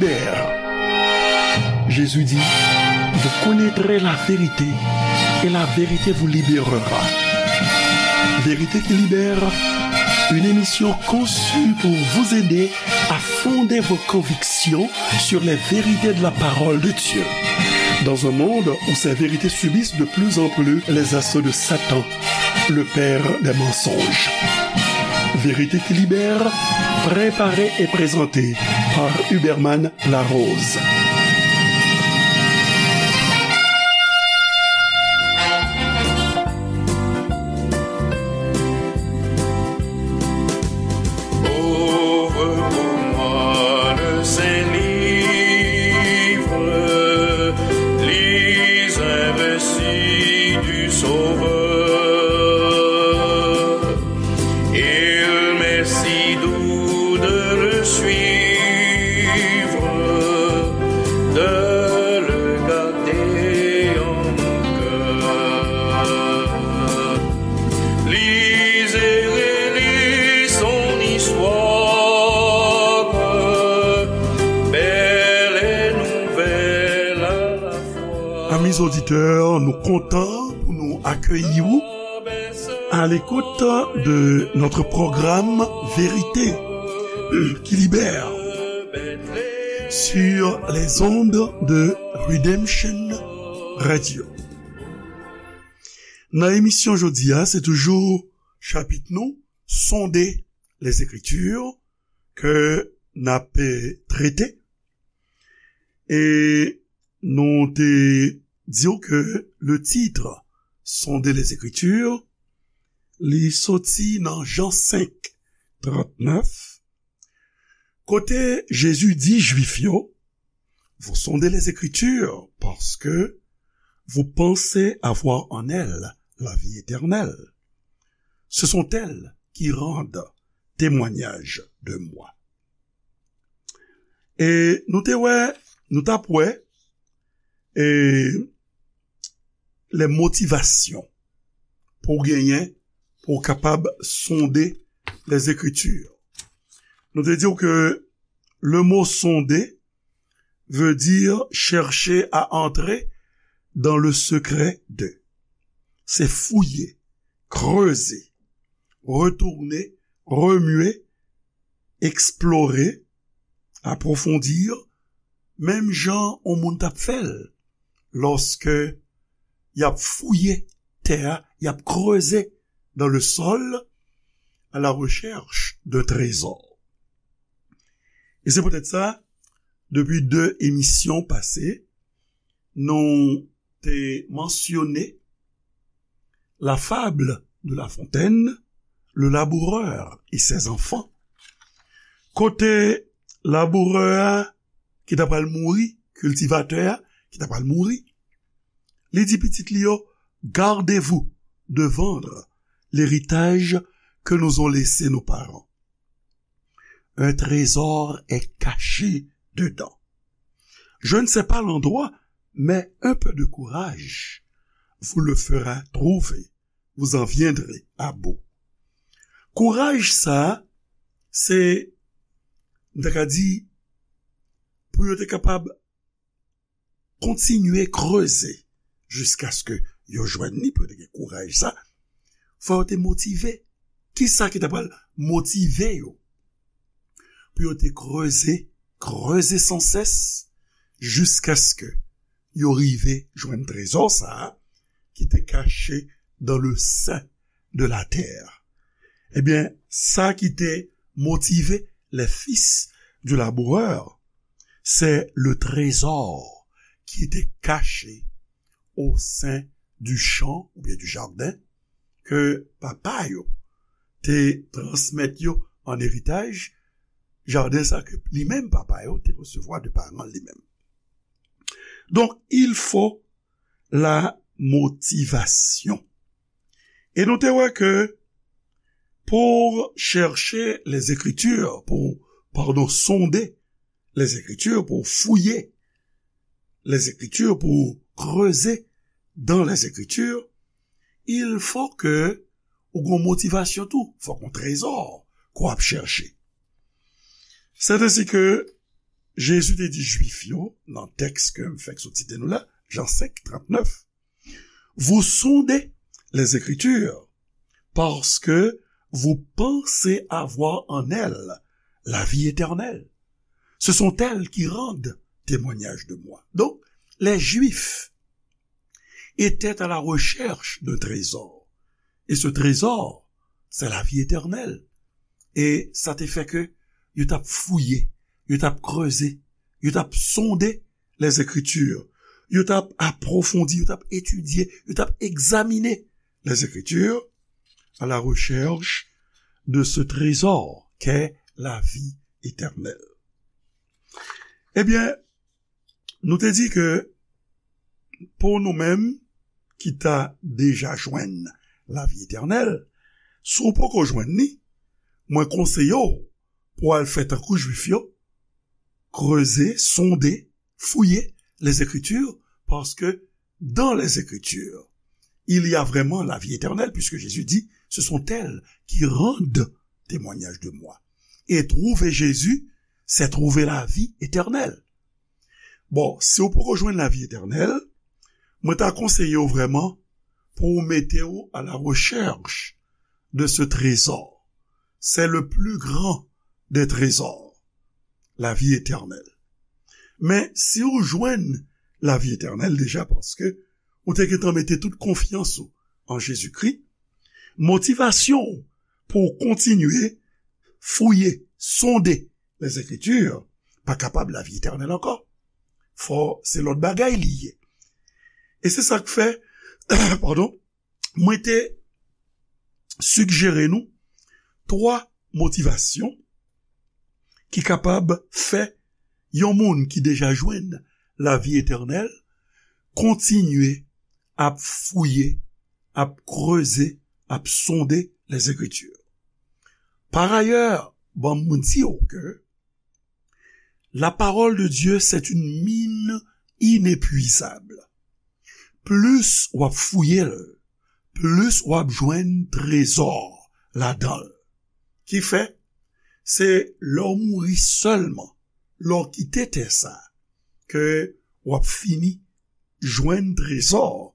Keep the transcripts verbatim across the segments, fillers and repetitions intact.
Libère. Jésus dit, vous connaîtrez la vérité et la vérité vous libérera. Vérité qui libère, une émission conçue pour vous aider à fonder vos convictions sur les vérités de la parole de Dieu. Dans un monde où ces vérités subissent de plus en plus les assauts de Satan, le père des mensonges. Vérité qui libère, préparée et présentée par Huberman Larose. Ouvre pour moi le Saint-Livre, lis un récit du Sauveur. Il m'est si doux de le suivre, de le garder en mon cœur. Lise et relis son histoire, belle et nouvelle à la fois. Amis auditeurs, nou kontan pou nou akeyi w à l'écoute de notre programme Vérité qui libère sur les ondes de Redemption Radio. Nan emisyon jodi a, se toujou chapit nou, Sonder les Écritures, ke n ap, eh, trete. E nou te di w ke le titre Sonder les Écritures, li soti nan Jan senk, trannèf, kote Jezi di Jwif yo, vous sondez les Écritures parce que vous pensez avoir en elles la vie éternelle. Ce sont elles qui rendent témoignage de moi. E nou te wè, nou t ap wè, e les motivations pou w genyen, pou w kapab sonder les Écritures. Nou te di w ke le mot sonder veut dire chercher à entrer dans le secret de. Se fouye, kreze, retounen, remye, eksplore, apwofondi, menm jan yon moun t ap fè l lòske y ap fouye tè a, y ap kreze dans le sol à la recherche d'un trésor. E se poutèt sa, depi de emisyon pase, nou te mansyone la fable de La Fontaine, le laboureur et ses enfants. Kote labourè a ki ta pral mouri, kiltivatè a ki ta pral mouri, li di pitit li yo, gardez-vous de vendre l'héritage que nous ont laissé nos parents. Un trésor est caché dedans. Je ne sais pas l'endroit, mais un peu de courage vous le fera trouver. Vous en viendrez à bout. Kouraj sa, se, m ta ka di, pou yo te kapab kontinye kreze jiskaske yo jwenn li, pou yo te gen kouraj sa, fò yo te motive. Kisa ki ta pral motive yo? Pou yo te kreze, kreze sansès, jiskaske yo rive jwenn trezò sa a ki te kache dans le sein de la terre. Ebyen, sa ki te motive les fils du laboureur, c'est le trésor qui était caché au sein du champ oubyen du jardin ke papa yo te transmèt yo an eritaj, jaden sa ke li menm papa yo te resevwa de paran li menm. Donk, il faut la motivation. E nou te wè ke pour chercher les Écritures, pou, padon, sonder les Écritures, pou fouye les Écritures, pou kreze dans les Écritures, il faut que ou gon motivasyon tou, fòk gon trezò ke w ap chèche. C'est ainsi que Jezi te di Jwif yo, nan tèks ke m fèk sot site nou la, Jan senk, trannèf, Vous sondez les Écritures, parce que vous pensez avoir en elles la vie éternelle. Ce sont elles qui rendent témoignage de moi. Donc, les Juifs étaient à la recherche d'un trésor. Et ce trésor, c'est la vie éternelle. E sa te fè ke yo t ap fouye, yo t ap kreze, yo t ap sonde les Écritures, yo t ap apwofondi, yo t ap etidye, yo t ap egzamine les Écritures à la recherche de ce trésor qu'est la vie éternelle. Ebyen, nou te di ke pou nou menm ki ta deja jwenn lavi etènèl, si w poko jwenn li, mwen konseye w pou w al fè tankou Jwif yo, kreze, sonde, fouye les Écritures, parce que dans les Écritures, il y a vraiment la vie éternelle, puisque Jésus dit, ce sont elles qui rendent témoignage de moi. Et trouver Jésus, c'est trouver la vie éternelle. Bon, si w poko jwenn lavi etènèl, mwen ta konseye w vrèman pou w mete w à la recherche de ce trésor. C'est le plus grand des trésors, la vie éternelle. Men si w jwenn lavi etènèl deja, paske ou te gentan mete tout konfyans ou an Jezikri, motivasyon w pou w kontinye fouye, sonde les Écritures, pa kapab lavi etènèl ankò. Fò se lòt bagay li ye. E se sa k fè, padon, mwen te sijere nou twa motivasyon ki kapab fè yon moun ki deja jwenn lavi etènèl kontinye ap fouye, ap kreze, ap sonde les Écritures. Par ailleurs, ban m di w ke la parole de Dieu, c'est une mine inépuisable. Plis w ap fouye l, plis w ap jwenn trezò ladan l. Ki fè, se lè w mouri sèlman, lè w kite tè sa, ke w ap fini jwenn trezò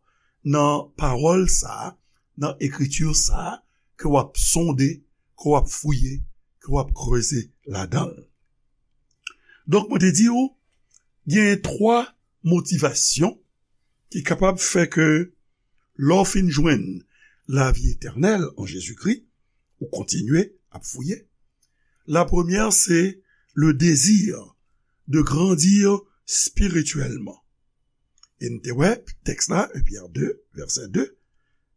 nan pawòl sa a, nan ekriti sa a, ke w ap sonde, ke w ap fouye, ke w ap kreze ladan l. Donk, mwen te di w, gen twa motivasyon ki kapab fè ke lè w fin jwenn lavi etènèl an Jezikri, ou kontinye ap fouye. La premyè, se le désir de grandir spirituellement. E n te wè tèks la, un Pierre deux, verset deux,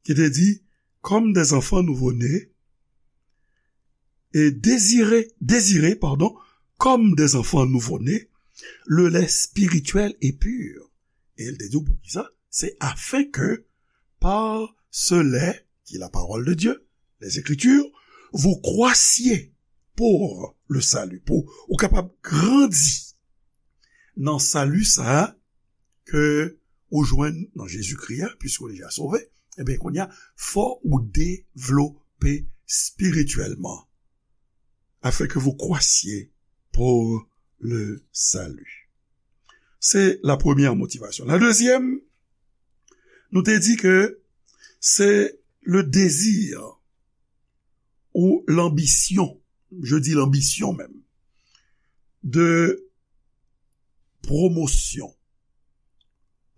ki te di, comme des enfants nouveau-nés, et désirez, désirez, pardon, comme des enfants nouveau-nés, le lait spirituel et pur. E l te di w poukisa? Se afin que par ce lait, qui est la parole de Dieu, les Écritures, vous croissiez pour le salut, pou ou kapab grandi nan sali sa a ke ou jwenn nan Jezikri a, puisque ou deja sove, ebyen, kounye a, fò ou devlope spirituellement, afin que vous croissiez pour le salut. C'est la première motivation. La deuxième, nou te di ke c'est le désir ou l'ambition, je dis l'ambition même, de promotion.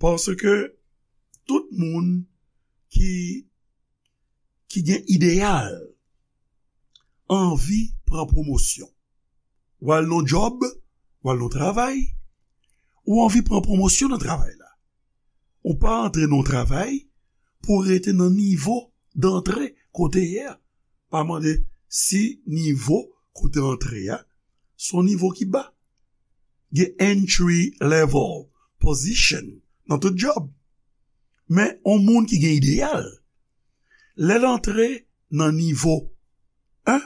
Paske tout moun ki, ki gen ideyal, anvi pran pwomosyon. W al nan djòb, w al nan travay, ou anvi pran pwomosyon nan travay la. Ou pa antre nan travay pou rete nan nivo dantre kote ye a. Pa mande si nivo kote antre a, se yon nivo ki ba. Gen entry level position nan tout djòb. Men, yon moun ki gen ideyal, lè l antre nan nivo en,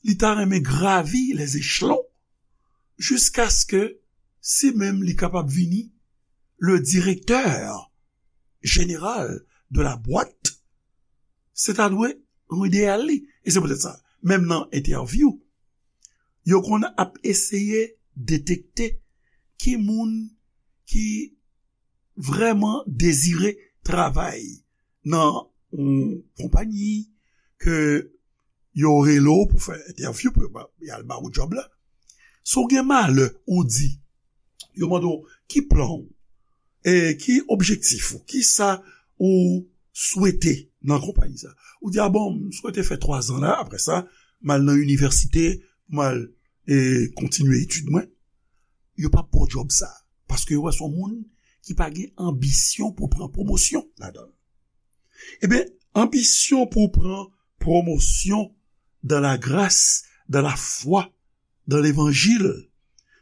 li ta renmen gravi les échelons, jiskaske si menm li kapab vini le directeur général de la boîte, se ta dwe yon ideyal li. E se poutèt sa, menm nan entèvyou, yo konn ap eseye detekte ki moun ki vrèman dezire travay nan yon konpayi ke yo rele w pou fè entèvyou, pou y al ba w djòb la. Si w gen malè, ou di, yo mande w ki plan w, e ki objektif ou, ki sa ou swete nan konpayi sa. Ou di, a bon, m swete fè twa zan la, apre sa, m al nan inivèsite, m al e, kontinye etid mwen, yo p ap ba w djòb sa. Paske yo wè se yon moun ki pa gen anbisyon pou pran pwomosyon ladan l. Ebyen, anbisyon pou pran pwomosyon dans la grâce, dans la foi, dans l'évangile,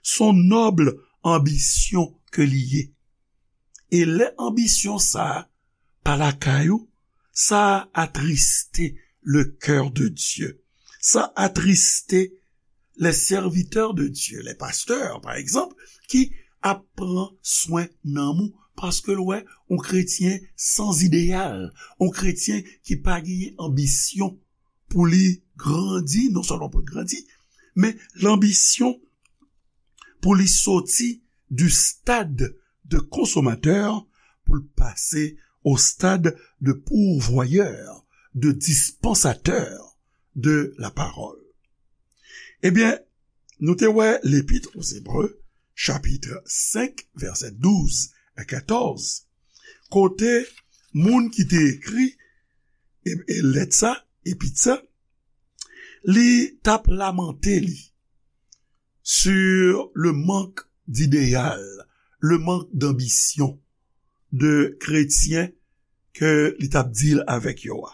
se yon nòb anbisyon ke li ye. E lè anbisyon sa a pa lakay ou, sa a atriste le cœur de Dieu. Sa atriste les serviteurs de Dieu, les pasteurs, par exemple, ki ap pran swen nanm ou, paske l wè yon kretyen san ideyal, yon kretyen ki pa genyen anbisyon pou li grandi, non sèlman pou l grandi, men lanbisyon pou li soti du stade de consommateur pou l pase au stade de pourvoyeur, de dispensateur de la parole. Ebyen, nou te wè Lepit aux Hébreux, chapit senk, vèsè douz a katòz, kote moun ki te ekri e, e lèt sa, epit sa, li t ap lamante li sur le manque d'idéal, le manque d'ambition de kretyen ke li t ap deal avèk yo a.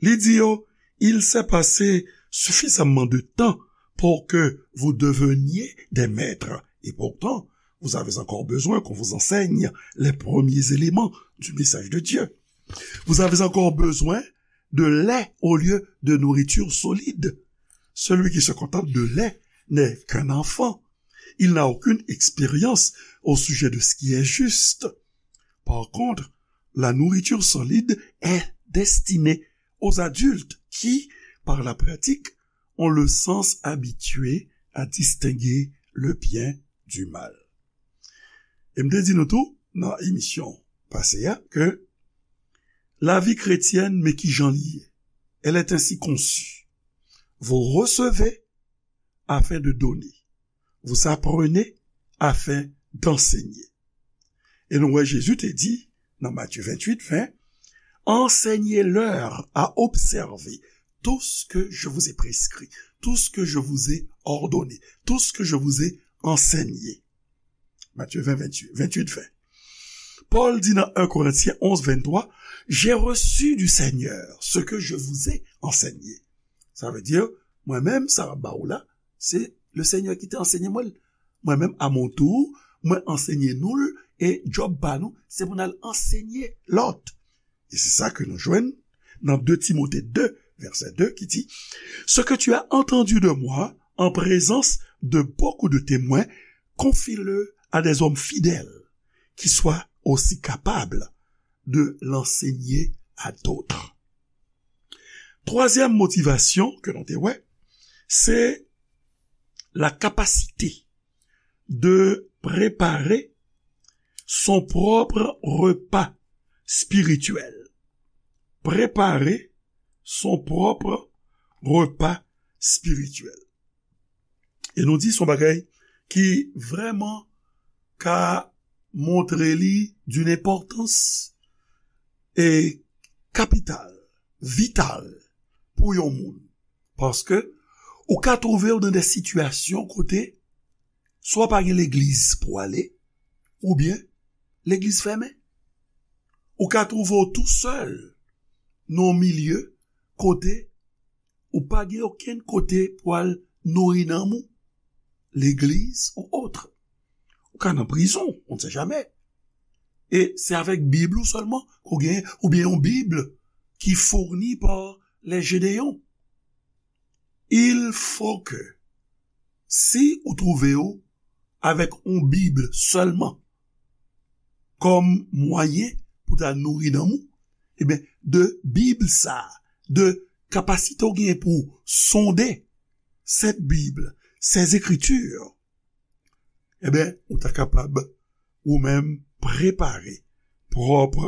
Li di yo, il s'est passé suffisamment de temps pour que vous deveniez des maîtres. Et pourtant, vous avez encore besoin qu'on vous enseigne les premiers éléments du message de Dieu. Vous avez encore besoin de lait au lieu de nourriture solide. Celui qui se contente de lait n'est qu'un enfant. Il n'a aucune expérience au sujet de ce qui est juste. Par contre, la nourriture solide est destinée aux adultes qui, par la pratique, ont le sens habitué à distinguer le bien du mal. E m te di nou tou nan emisyon pase a ke lavi kretyèn, men ki jan li ye. Elle est ainsi conçue. Vous recevez afin de donner. Vous apprenez afin d'enseigner. E nou wè Jezi te di nan Matye venntuit ven, enseignez-leur à observer tout ce que je vous ai prescrit, tout ce que je vous ai ordonné, tout ce que je vous ai enseigné. Matye ven, venntuit, venntuit ven. Pòl di nan en Korentyen onz venntwa, j'ai reçu du Seigneur ce que je vous ai enseigné. Sa vle di, mwen menm, sa m ap ba ou la, se le Seigneur ki te ansenye mwen l. Mwen menm, a mon tour, mwen ansenye nou l, e djòb pa nou, se pou n al ansenye lòt. E se sa ke nou jwenn nan de Timote de, vèsè de, ki di, ce que tu as entendu de moi en présence de beaucoup de témoins, confie-le à des hommes fidèles qui soient aussi capables de l'enseigner à d'autres. Twazyèm motivasyon ke nou te wè, se la capacité de préparer son propre repas spirituel. Préparer son propre repas spirituel. E nou di se yon bagay ki vrèman ka montre li d'une importance e kapital, vital pou yon moun. Paske ou ka twouve w nan de sitiyasyon kote swa pa gen legliz pou w ale, oubyen legliz fèmen. Ou ka twouve w tou sèl nan yon milye kote ou pa gen okenn kote pou al nouri nanm ou, legliz ou otre. Ou ka nan prizon, on ne sait jamais. E se avèk Bib ou sèlman ke w genyen, oubyen yon Bib ki fourni par les Gédéons. Il faut que, si ou twouve w avèk yon Bib sèlman kòm mwayen pou ta nouri nanm ou, ebyen, de Bib sa, de kapasite w genyen pou sonde Sent Bib, Sent Ekriti, Ebyen, ou ta kapab ou menm prepare pwòp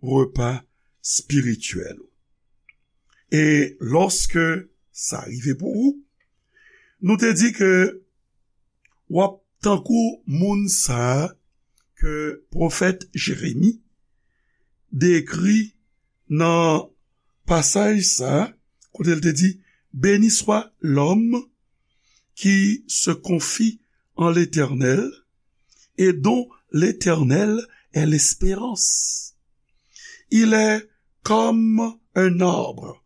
repa espirityèl ou. E lòske sa rive pou ou, nou te di ke w ap tankou moun sa a ke pwofèt Jeremi dekri nan pasaj sa a, kote l te di, Béni soit l'homme qui se confie en l'Éternel et dont l'Éternel est l'espérance. Il est comme un arbre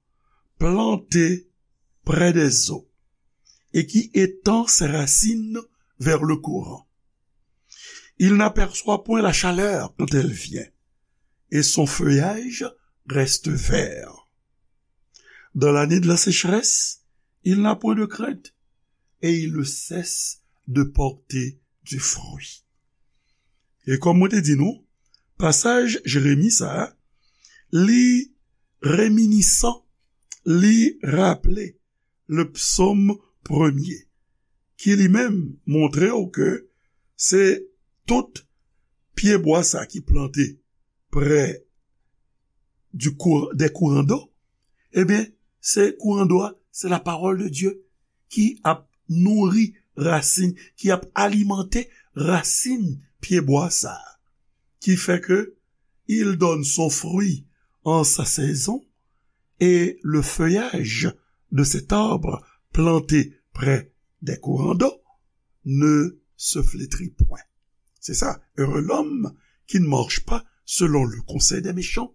planté près des eaux et qui étend ses racines vers le courant. Il n'aperçoit point la chaleur quand elle vient, et son feuillage reste vert. Dans l'année de la sécheresse, il n'a point de crainte, et il ne cesse de porter du fruit. E kòm mwen te di nou, pasaj Jeremi sa a, li reminisan, li raple le psaume premier, ki li menm montre w ke se tout pyebwa sa ki plante prè du cour-, des courants d'eau, ebyen, se kouran dlo a, se la parole de Dieu ki ap nouri rasin, ki ap alimante rasin pyebwa sa a, ki fè ke il donne son fruit en sa saison, et le feuillage de cet arbre planté près des courants d'eau ne se flétrit point. C'est ça, heureux l'homme qui ne marche pas selon le conseil des méchants,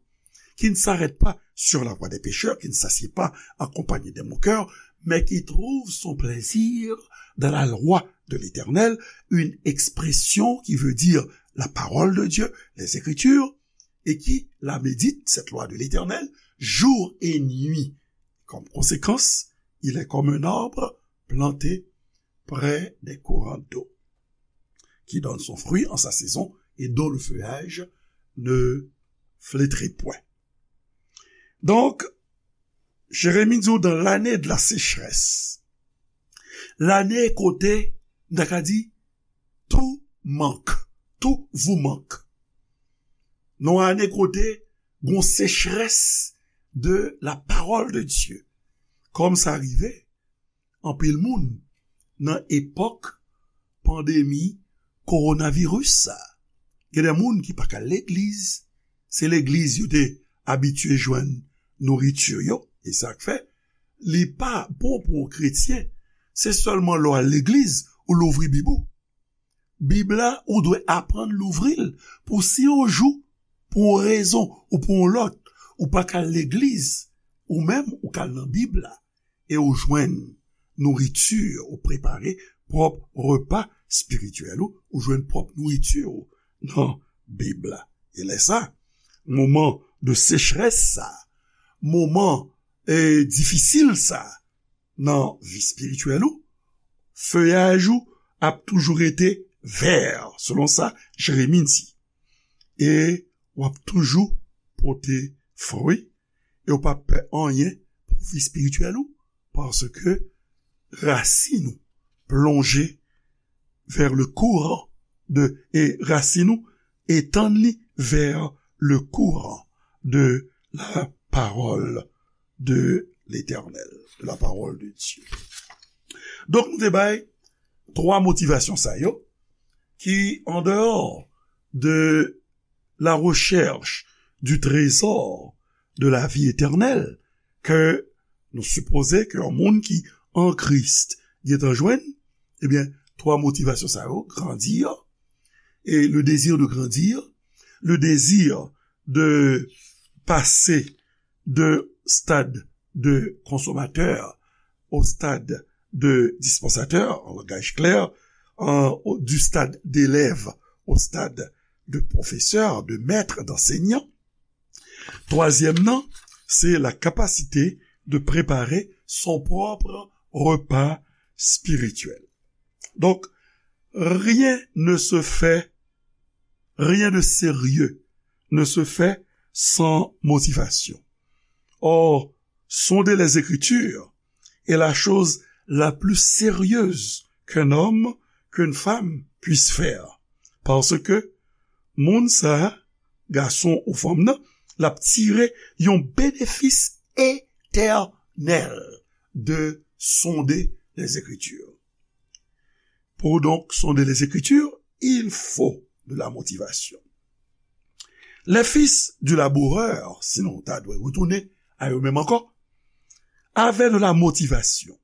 qui ne s'arrête pas sur la voie des pécheurs, qui ne s'assied pas accompagné des moqueurs, mais qui trouve son plaisir dans la loi de l'Éternel, une expression qui veut dire la parole de Dieu, les Écritures, et qui la médite, cette loi de l'Éternel, jour et nuit. Comme conséquence, il est comme un arbre planté près des courants d'eau, qui donne son fruit en sa saison et dont le feuillage ne flétrit point. Donk, Jeremi di w, dans l'année de la sécheresse, lane kote, n ta ka di, tou mank, tou vou mank. Nan ane kote gon sechrès de la parole de Dieu. Kòm sa rive anpil moun nan epòk pandemi kowonaviris sa. Gen de moun ki pa ka al legliz, se legliz yo te abitye jwenn nouriti yo, e sa k fè li pa bon pou yon kretyen, se sèlman lè w al legliz ou louvri Bib ou. Bib la, ou dwe aprann louvri l pou si yon jou, pou yon rezon ou pou yon lòt, ou pa ka al legliz, ou menm ou ka al nan Bib la e ou jwenn nouriti, ou prepare pwòp repa espirityèl ou, ou jwenn pwòp nouriti ou nan Bib la. E lè sa, moman de sechrès sa, moman, e, difisil sa nan vi espirityèl ou, feyaj ou ap toujou rete vè, selon sa Jeremi di. E w ap toujou pote fwi, e w p ap pè anyen pou vi espirityèl ou, paske rasin ou plonje vers le courant de, e rasin ou etann li vers le courant de la parole de l'Éternel, de la parole de Dieu. Donk, nou te bay twa motivasyon sa yo, ki, en dehors de la recherche du trésor de la vie éternelle, ke nou sipoze ke yon moun ki an Kris gentan jwenn, ebyen, twa motivasyon sa yo, grandir, et le désir de grandir, le désir de passer de stade de consommateur au stade de dispensateur, en langage clair, en, au, du stade d'élève au stade de professeur, de maître, d'enseignant. Twazyèm nan, se la kapasite de prepare son pwòp repa espirityèl. Donk, rien ne se fait, rien de sérieux ne se fait sans motivation. Or, sonder les Écritures est la chose la plus sérieuse qu'un homme, qu'une femme puisse faire. Paske moun sa, gason ou fanm nan, l ap tire yon benefis etènèl de sonder les Écritures. Pour donc sonder les Écritures, il faut de la motivation. Les fils du laboureur, sinon ta dwe retounen a yo menm ankò, avaient de la motivation.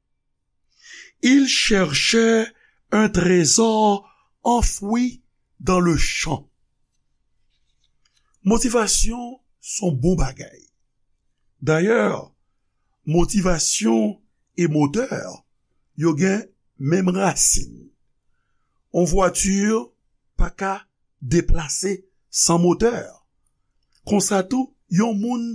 Ils cherchaient un trésor enfoui dans le champ. Motivasyon se yon bon bagay. Dayè, motivasyon e motè, yo gen menm rasin. Yon vwati pa ka deplase san motè. Konsa tou, yon moun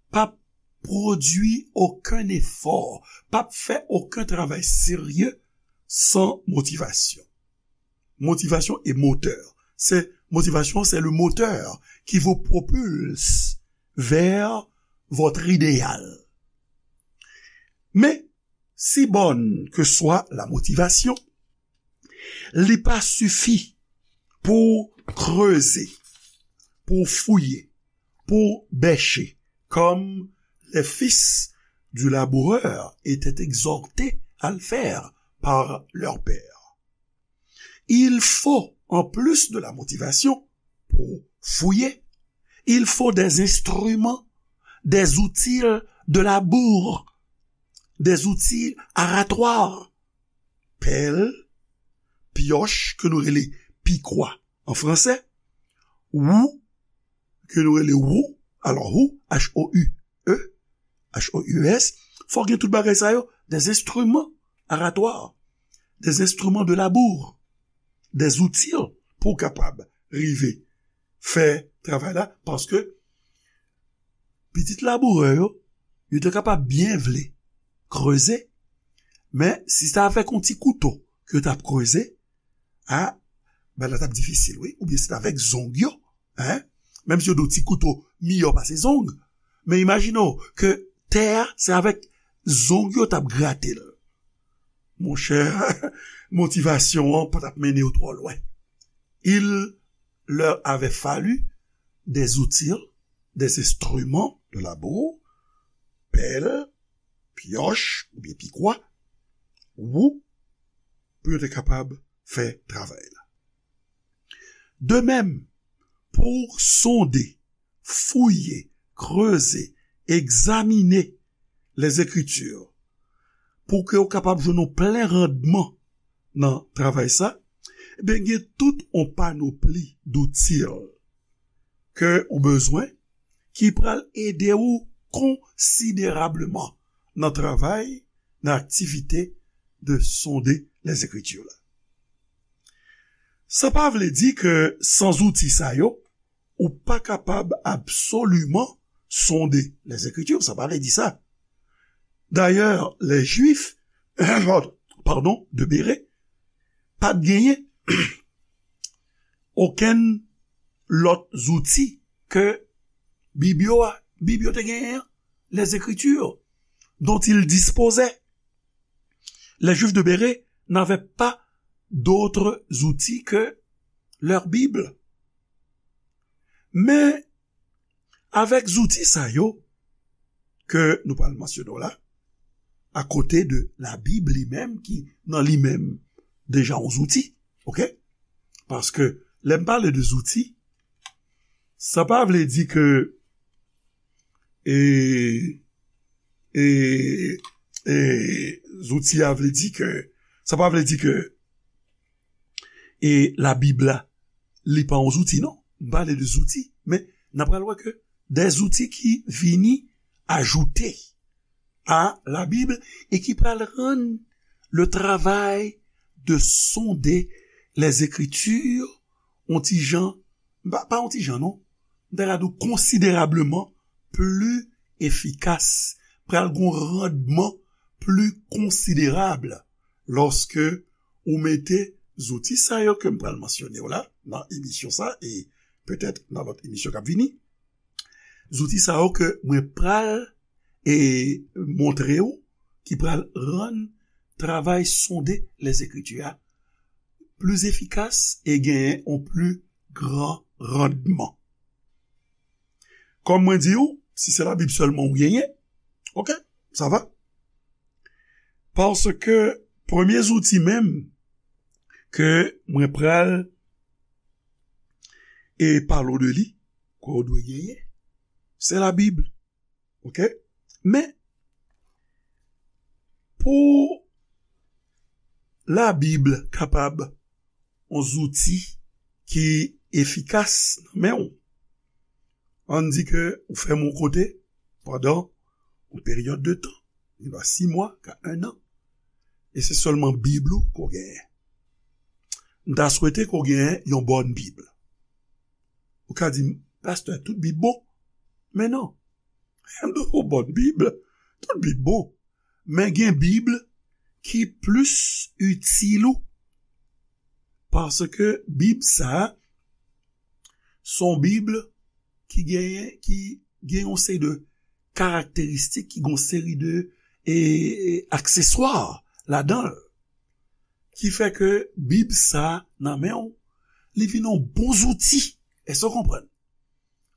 p ap pwodui okenn efò, p ap fè okenn travay serye san motivasyon. Motivation et moteur. C'est, motivation, c'est le moteur qui vous propulse vers votre idéal. Men, si bòn ke swa la motivasyon, li pa sifi pou kreze, pou fouye, pou bèche, comme les fils du laboureur étaient exhortés à le faire par leur père. Il faut, en plus de la motivation, pour fouiller, il faut des instruments, des outils de labour, des outils aratoires. Pèl, pioche, ke nou rele pikwa an fransè, wou, ke nou rele wou, alò wou, H O U E, H O U E S, fò gen tout bagay sa yo, des instruments aratoires, des instruments de labour, des outils pou w kapab rive fè travay la, paske pitit labourè yo, yo te kapab byen vle kreze, men si se avèk yon ti kouto ke yo t ap kreze, a, bagay la t ap difisil, wi. Oubyen se t avèk zong yo, en? Menm si yo di w ti kouto miyò pase zong, men imajine w ke tè a, se avèk zong yo t ap grate l. Monchè, motivasyon an pa t ap mennen yo twò lwen. Il leur avait fallu des outils, des instruments de labour, pèl, pioche oubyen pikwa, wou, pou yo te kapab fè travay la. De même, pour sonder, fouye, kreze, egzamine les Écritures, pou ke w kapab jwenn yon plen randman nan travay sa, ebyen, gen tout yon panopli doutil ke ou bezwen ki pral ede w konsiderableman nan travay, nan aktivite de sonder les Écritures la. Sa pa vle di ke san zouti sa yo, ou pa kapab absoliman sonder les Écritures, sa pa vle di sa. Dayè, les Juifs, pardon, de Béré, pa t genyen okenn lòt zouti ke Bib yo a. Bib yo te genyen an, les Écritures dont ils disposaient. Les Juifs de Béré n'avaient pas d'autres outils que leur Bible. Men, avèk zouti sa yo ke nou pral mansyone w la, akote de Labib li menm, ki nan li menm deja yon zouti, oke? Paske lè m pale de zouti, sa pa vle di ke, e, e, e, zouti a vle di ke, sa pa vle di ke, e, Labib la, li pa yon zouti, non. M pale de zouti, men n ap pral wè ke de zouti ki vini ajoute a Labib e ki pral rann le travay de sonder les Écritures yon ti jan, pa, pa yon ti jan, non, m ta ka di w konsiderableman pli efikas, pral gen yon randman pli konsiderab lòske ou mete zouti sa yo ke m pral mansyone w la nan emisyon sa e petèt nan lòt emisyon k ap vini. Zouti sa yo ke mwen pral e montre w ki pral rann travay sonder les Écritures a pli efikas e genyen yon pli gran randman. Kòm mwen di w, si se Labib sèlman ou genyen, oke, sa va. Paske premye zouti menm ke mwen pral e pale w de li, ke w dwe genyen, se Labib. Oke? Men, pou Labib kapab yon zouti ki efikas nan men w, ann di ke ou fèmen yon kote pandan yon peryòd de tan, li va sis mwa, ka en an, e se sèlman Bib ou ke w genyen. M ta swete ke w genyen yon bòn Bib. Ou ka di m, "Pastè, tout Bib bon." Men non. Yon bòn Bib, tout Bib bon. Men gen Bib ki plis itil ou. Paske Bib sa a, se yon Bib ki genyen, ki gen yon seri de karakteristik, ki gen yon seri de, e, akseswa ladan l. Ki fè ke Bib sa a nan men w, li vin yon bon zouti. Èske w konprann?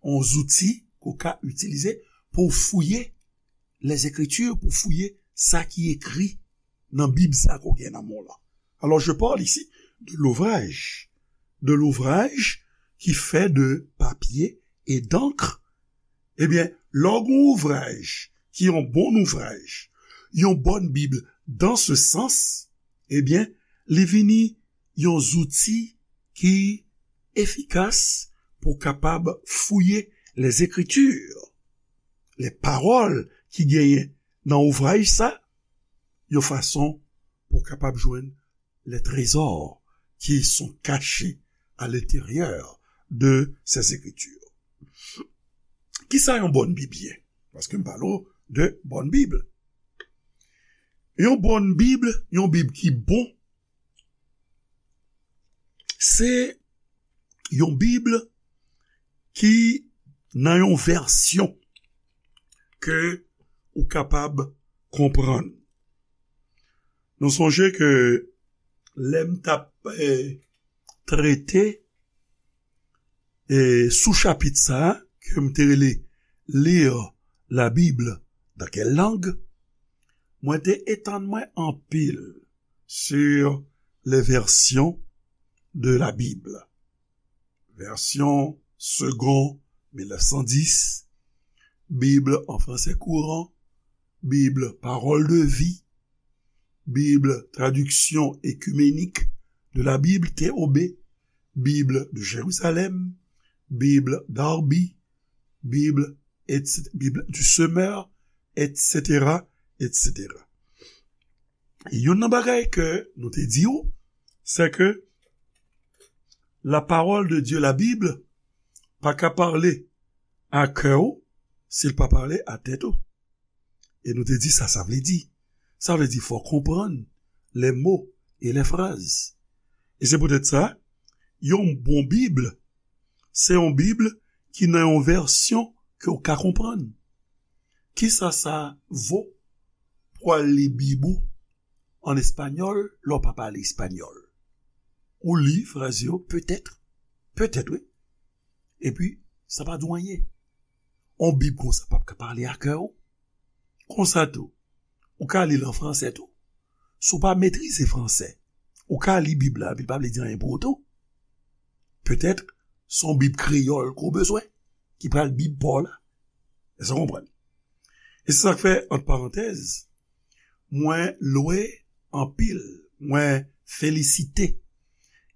Yon zouti ke w ka itilize pou w fouye Lèzekriti, pou w fouye sa ki ekri nan Bib sa ke w gen nan men w lan. Alors, je parle ici de l'ouvrage, de l'ouvrage qui fait de papier et d'encre. Ebyen, lè w gen yon ouvraj ki yon bon ouvraj, yon bòn Bib dans ce sens, ebyen, li vini yon zouti ki efikas pou w kapab fouye Lèzekriti, lè pawòl ki genyen nan ouvraj sa, yon fason pou w kapab jwenn les trésors qui sont cachés à l'intérieur de ces écritures. Kisa yon bòn Bib ye? Paske m pale w de bòn Bib. Yon bòn Bib, yon Bib ki bon, se yon Bib ki nan yon vèsyon ke ou kapab konprann. Nou sonje ke lè m t ap, eh, trete, eh, sou chapit sa a, ke m te rele Lire la Bible dans quelle langue, mwen te etann mwen anpil sur les versions de la Bible. Version Segond mil nèf san dis, Bible en français courant, Bible Parole de vie, Bible Traduction écuménique de la Bible, T O B, Bible de Jérusalem, Bible Darby, Bible, et cetera, Bible du Semeur, et cetera, et cetera. E youn nan bagay ke nou te di w, se ke la parole de Dieu, la Bible, pa ka pale a kè w si l pa pale a tèt ou. E nou te di sa sa vle di. Sa vle di fò w konprann les mots et les phrases. E se poutèt sa, yon bon Bib, se yon Bib ki nan yon vèsyon ke w ka konprann. Kisa sa vo pou w al li Bib ou an espanyòl lè w pa pale espanyòl? Ou li fraz yo, petèt, petèt, wi. Epi, sa pa di w anyen. On Bib konsa p ap ka pale a kè w. Konsa tou, ou ka li l an fransè tou. Si w pa metrize fransè, ou ka li Bib la, epi l pa vle di anyen pou ou tou. Petèt, se yon Bib kreyòl ke w bezwen, ki pral Bib pa w la. Èske w konprann? E se sa k fè, ant parantèz, mwen lwe anpil, mwen felisite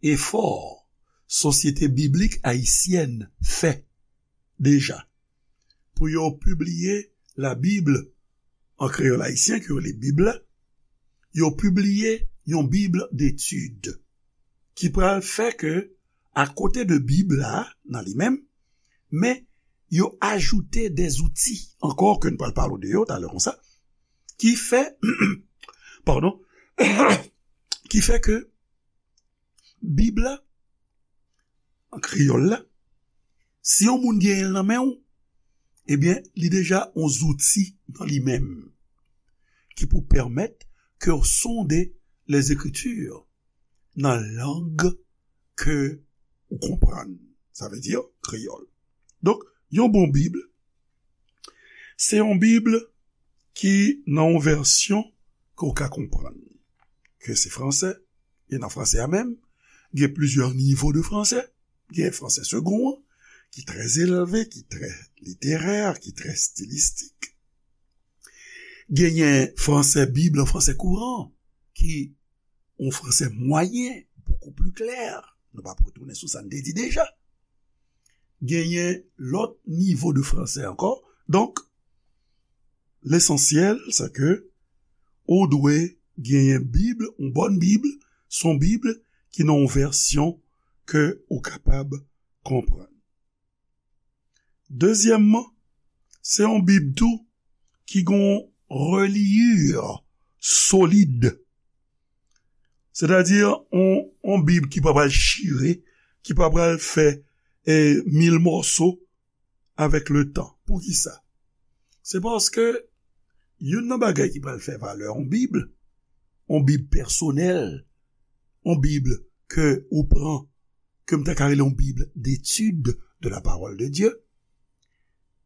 efò Sosyete Biblik Ayisyèn fè deja pou yo pibliye la Bib an kreyòl ayisyen, ke yo rele Bib la, yo pibliye yon Bib detid ki pral fè ke, akote de Bib la, nan li menm, men yo ajoute de zouti ankò ke n pral pale w de yo talè konsa, ki fè, padon, ki fè ke Bib la, an kreyòl la, si yon moun genyen l nan men w, ebyen, li deja yon zouti nan li menm ki pou pèmèt ke w sonde Lèzekriti, nan lang ke ou konprann. Sa vle di kreyòl. Donk, yon bon Bib, se yon Bib ki nan yon vèsyon ke w ka konprann. Ke se fransè, e nan fransè a menm, gen plizyè nivo de fransè. Gen fransè segon an, ki trè elve, ki trè literè, ki trè stilistik. Genyen fransè Bib lan, fransè kouran, ki yon fransè mwayen, bokou pli klè. Nou p ap retounen sou sa n te di deja. Genyen lòt nivo de fransè ankò. Donk, lesansyèl, se ke ou dwe genyen Bib, yon bòn Bib, se yon Bib ki nan yon vèsyon ke ou kapab konprann. Dezyèmman, se yon Bib tou ki gen yon reliure solid. Sètadi, yon, yon Bib ki pa pral chire, ki pa pral fè, eh, mil mòso avèk letan. Poukisa? Se paske youn nan bagay ki pral fè valè yon Bib, yon Bib pèsonèl, yon Bib ke ou pran, ke m ta ka rele yon Bib d'étude de la parole de Dieu,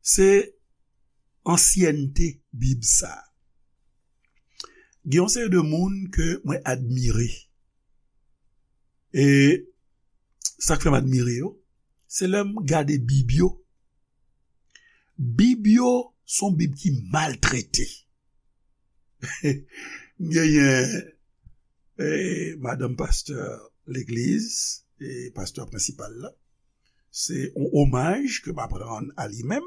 se ansyènte Bib sa. Gen yon seri de moun ke mwen admire. E sa k fè m admire yo, se lè m gade Bib yo. Bib yo se yon Bib ki maltrete. M genyen, eh, madanm pastè legliz, e pastè prensipal la. Se yon omaj ke m ap rann a li menm.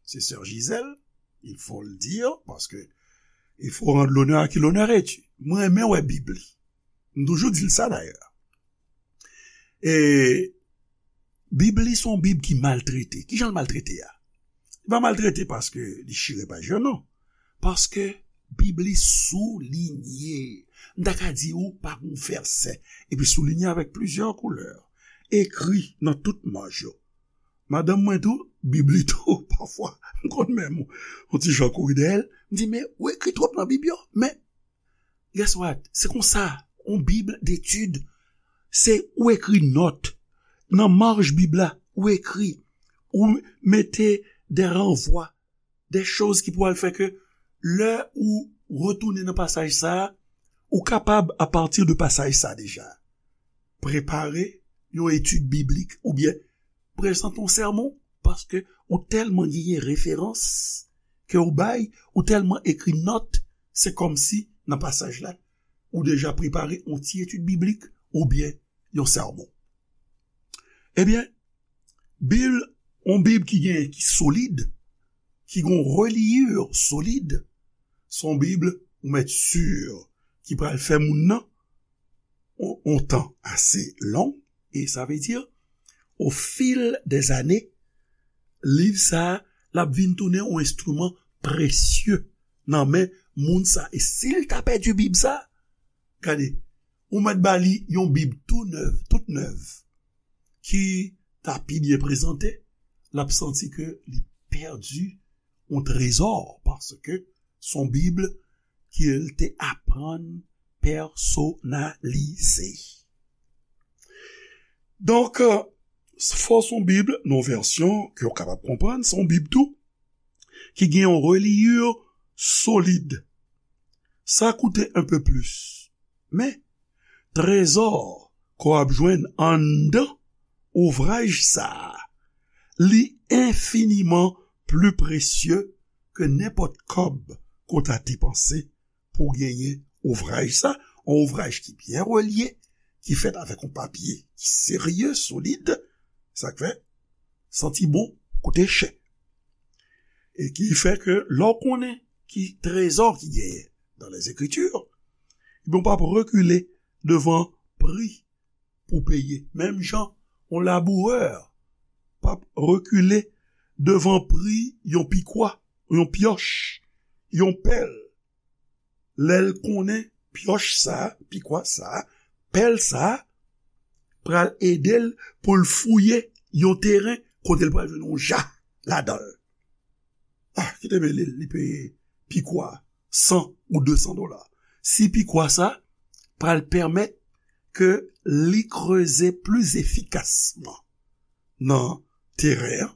Se sè Gisèle, il faut le dire, parce que il faut rendre l'honneur à qui l'honneur est dû. Mwen renmen wè Bib li. M toujou di l sa dayè. E Bib li se yon Bib ki maltrete. Kijan l maltrete a? Li pa maltrete paske li chire paj yo, non. Paske Bib li soulinye. M ta ka di ou pa gon vèsè. Epi soulinye avèk plizyè koulè. Ekri nan tout maj yo. Madanm mwen tou, Bib li tou, pafwa, m konn menm yon ti jan kouri dèyè l. M di, "Men, ou ekri twòp nan Bib yo." Men, guess what? Se konsa, yon Bib d'étude, se ou ekri nòt. Nan maj Bib la, ou ekri, ou mete de ranvwa, de choz ki pou al fè ke lè ou retounen nan pasaj sa a, ou kapab, apati de pasaj sa a deja, prepare yon etid biblik oubyen prezante yon sèmon, paske ou tèlman genyen referans ke ou bay, ou tèlman ekri nòt, se kòmsi nan pasaj la, ou deja prepare yon ti etid biblik oubyen yon sèmon. Ebyen, Bib, yon Bib ki gen, ki solid, ki gen yon reliure solid, se yon Bib ou mèt si ki pral fè moun nan yon, yon tan ase long, e sa vle di, au fil des années, liv sa a, l ap vin tounen yon enstriman presye nan men moun sa. E si l ta pèdi Bib sa, gade, ou mèt ba li yon Bib tou nèv, tout nèv, ki ta pi byen prezante, l ap santi ke li pèdi yon trezò, paske se yon Bib ke l te aprann pèsonalize. Donk, fò se yon Bib, nan yon vèsyon ke w kapab konprann, se yon Bib tou, ki gen yon reliure solid. Sa koute un peu plus. Men, trezò ke w ap jwenn anndan ouvraj sa a, li enfiniman pli presye ke nenpòt kòb ke w ta depanse pou w genyen ouvraj sa, yon ouvraj ki byen relye, ki fèt avèk yon papye ki serye, solid, sa k fè, santi bon, koute chè. E ki fè ke lè w konnen ki trezò ki genyen dans les Écritures, ebyen, w p ap rekile devan pri pou peye. Menm jan, yon labourè p ap rekile devan pri yon pikwa, yon pyòch, yon pèl. Lè l konnen pyòch sa, pikwa sa, pèl sa, pral ede l pou l fouye yon teren kote l pral jwenn yon ja ladan l. Ah, kite mele l, li peye pikwa san ou de san dola. Si pikwa sa pral pèmèt ke li kreze pli efikasman nan teren an,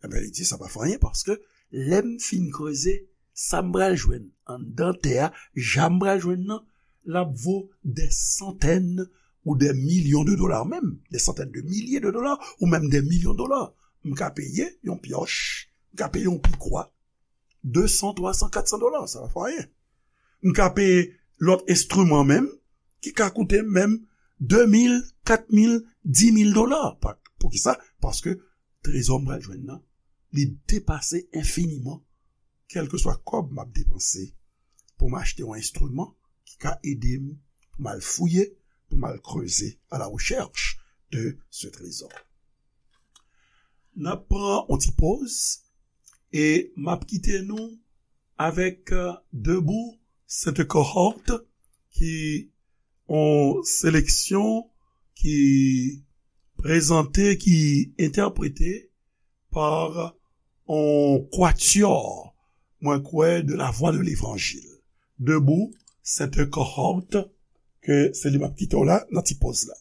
ebyen, li di, "Sa pa fè anyen, paske lè m fin kreze, sa m pral jwenn anndan tè a, ja m pral jwenn nan, l ap vo dè santèn ou dè milyon de dola, menm dè santèn de milye de dola, ou menm dè milyon dola. M ka peye yon pyòch, m ka peye yon pikwa, de san, twa san, kat san dola, sa pa fè anyen. M ka peye lòt enstriman menm, ki ka koute menm de mil, kat mil, di mil dola. Pa-, poukisa? Paske trezò m pral jwenn nan, li depase enfiniman kèlkeswa kòb m ap depanse pou m achte yon enstriman ki ka ede m pou m al fouye, pou m al kreze, à la recherche de ce trésor. N ap pran yon ti poz e m ap kite nou avèk, euh, Debout cette cohorte, ki yon seleksyon ki prezante, ki entèprete pa yon kwatyò, mwen kwè, de la Voix de l'Évangile. Debout cette cohorte, ke se li m ap kite w la nan ti poz la.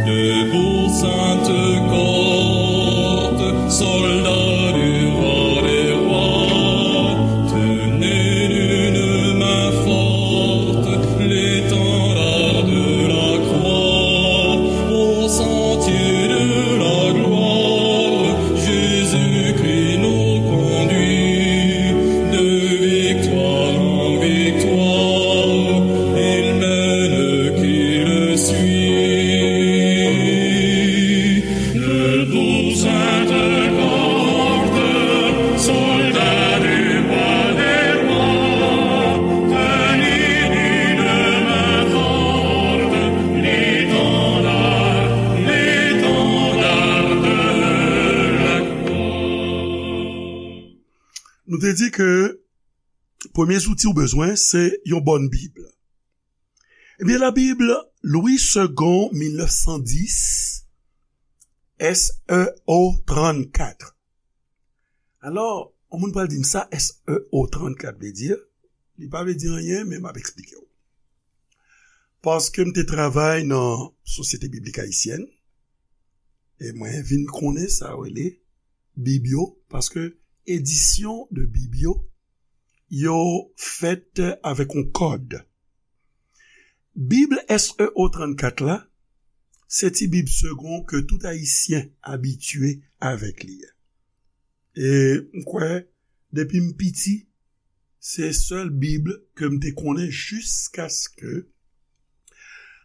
Debout, sainte cohorte, soldats du roi des rois, tenez d'une main forte l'étendard de la croix, au sentier de la gloire, Jésus-Christ nous conduit de victoire en victoire, il mène qui le suit. Debout, sainte cohorte, soldats du roi des rois, tenez d'une main forte l'étendard, l'étendard de la croix. Nou te di ke premye zouti ou bezwen, se yon bòn Bib. Ebyen, la Bib Louis Segond, mil nèf san dis, S E O trannkat. Alò, yon moun pral di m sa S E O trannkat vle di, li pa vle di anyen, men m ap eksplike w. Paske m te travay nan Sosyete Biblik Ayisyèn, e mwen vin konnen sa yo rele Bib yo, paske edisyon de Bib yo, yo fèt avèk yon kòd. Bib S E O trannkat la, se ti Bib Segond ke tout Ayisyen abitye avèk li a. E m kwè, depi m piti, se sèl Bib ke m te konnen jiskaske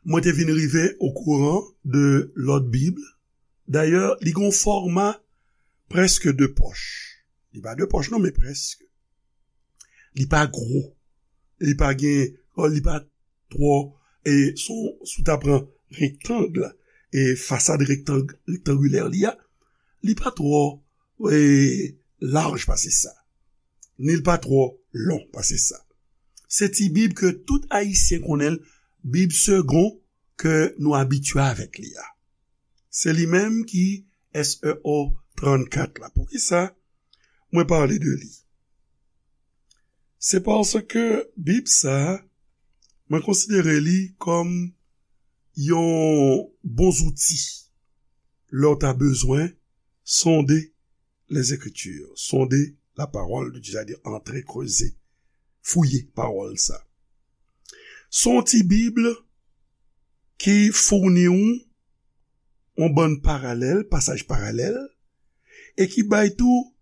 mwen te vin rive okouran de lòt Bib. Dayè, li gen yon fòma prèske de pòch. Li pa de pòch non, men prèske. Li pa gwo. Li pa gen, li pa twò, e si w, si w ta pran rektang, e fasad rektang, rektangilè li a, li pa twò, e laj pase sa. Ni l pa twò lon pase sa. Se ti Bib ke tout Ayisyen konnen l, Bib Segond ke nou abitye avèk li a. Se li menm ki S E O trannkat la. Poukisa mwen pale de li? Se paske Bib sa a, mwen konsidere li kòm yon bon zouti lè w ta bezwen sonde les Écritures, sonder la parole de Dieu, sètadi antre, kreze, fouye pawòl sa. Se yon ti Bib ki founi w yon bann paralèl, pasaj paralèl, e ki bay tou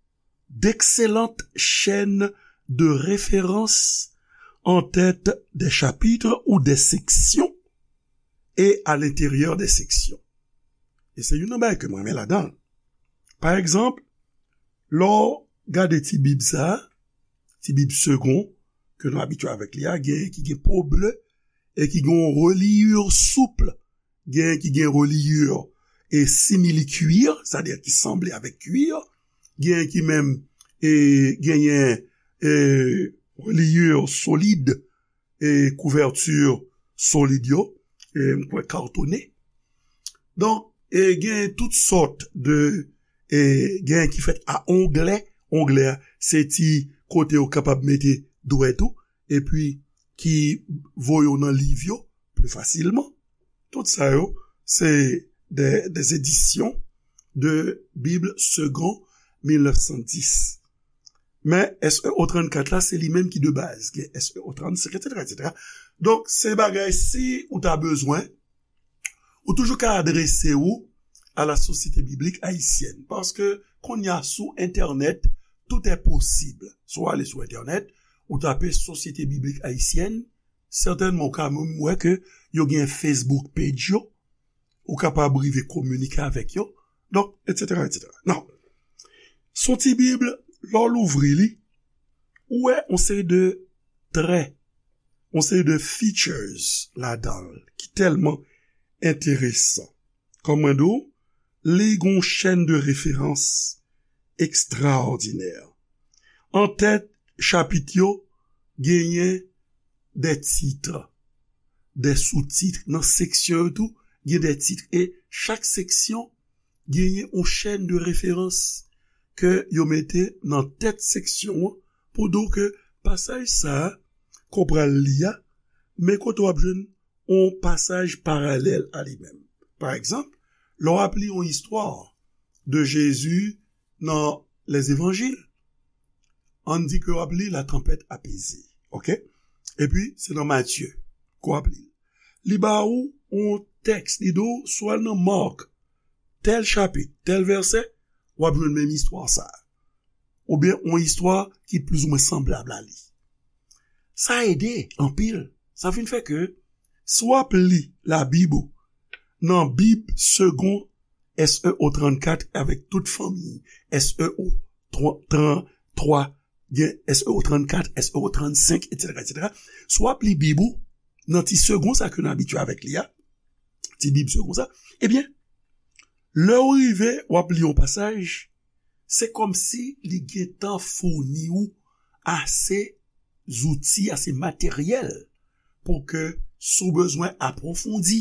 d'excellentes chaînes de référence en tête des chapitres ou des sections et à l'intérieur des sections. E se youn nan bagay ke mwen renmen ladan l. Pa egzanp, lè w gade ti Bib sa a, ti Bib Segond, ke nou abitye avèk li a, genyen ki gen po ble e ki gen yon reliure souple, genyen ki gen reliure e simili-cuir, sètadi ki sanble avèk cuir, gen ki menm e, genyen e, reliure solid, e, kouvèti solid yo, e, m kwè katone. Donk, e, gen tout sòt de, e, gen ki fèt a onglè. Onglè a, se ti kote ou kapab mete dwèt ou, epi ki voye w nan liv yo pli fasilman. Tout sa yo, se de, des éditions de Bible Segond mil nèf san dis. Men S E O trannkat la, se li menm ki de baz. Gen S E O trannsenk, etsetera, etsetera. Donk, se bagay, si ou ta bezwen, ou toujou ka adrese ou a la Société Biblique Haïtienne. Paske, kounye a, sou entènèt, tout est possible. Si w ale sou entènèt, ou tape Société Biblique Haïtienne, sètènman, ou ka menm wè ke yo gen Facebook page yo, ou kapab rive kominike avèk yo, donk, etsetera, etsetera. Nan, s on ti Bib, lè w louvri li, ou wè yon seri de trè, yon seri de features ladan l ki tèlman enteresan. Kòm mwen di w, li gen yon chèn de referans ekstraòdinè. An tèt chapit yo, genyen de tit, de soutit. Nan seksyon yo tou, gen de tit. E chak seksyon genyen yon chèn de referans ke yo mete nan tèt seksyon an pou di w ke pasaj sa a ke w pral li a, men kote w ap jwenn yon pasaj paralèl a li menm. Pa egzanp, lè w ap li yon istwa de Jezi nan Lèzevanjil, ann di ke w ap li La tempête apaisée, oke? Epi, se nan Matye ke w ap li l. Li ba ou yon tèks, li di w, si w al nan Mak, tèl chapit, tèl vèsè, w ap jwenn menm istwa sa a. Oubyen yon istwa ki plizoumwen sanblab a li. Sa ede anpil. Sa vin fè ke si w ap li Labib ou nan Bib Segond S E O trannkat avèk tout fanmi S E O trantwa, gen S E O trannkat, S E O trannsenk, etsetera, etsetera. Si w ap li Bib ou nan ti Segond sa ke nou abitye avèk li a, ti Bib Segond sa, ebyen, lè w rive, w ap li yon pasaj, se kòmsi li gentan founi w ase zouti, ase materyèl pou ke si w bezwen apwofondi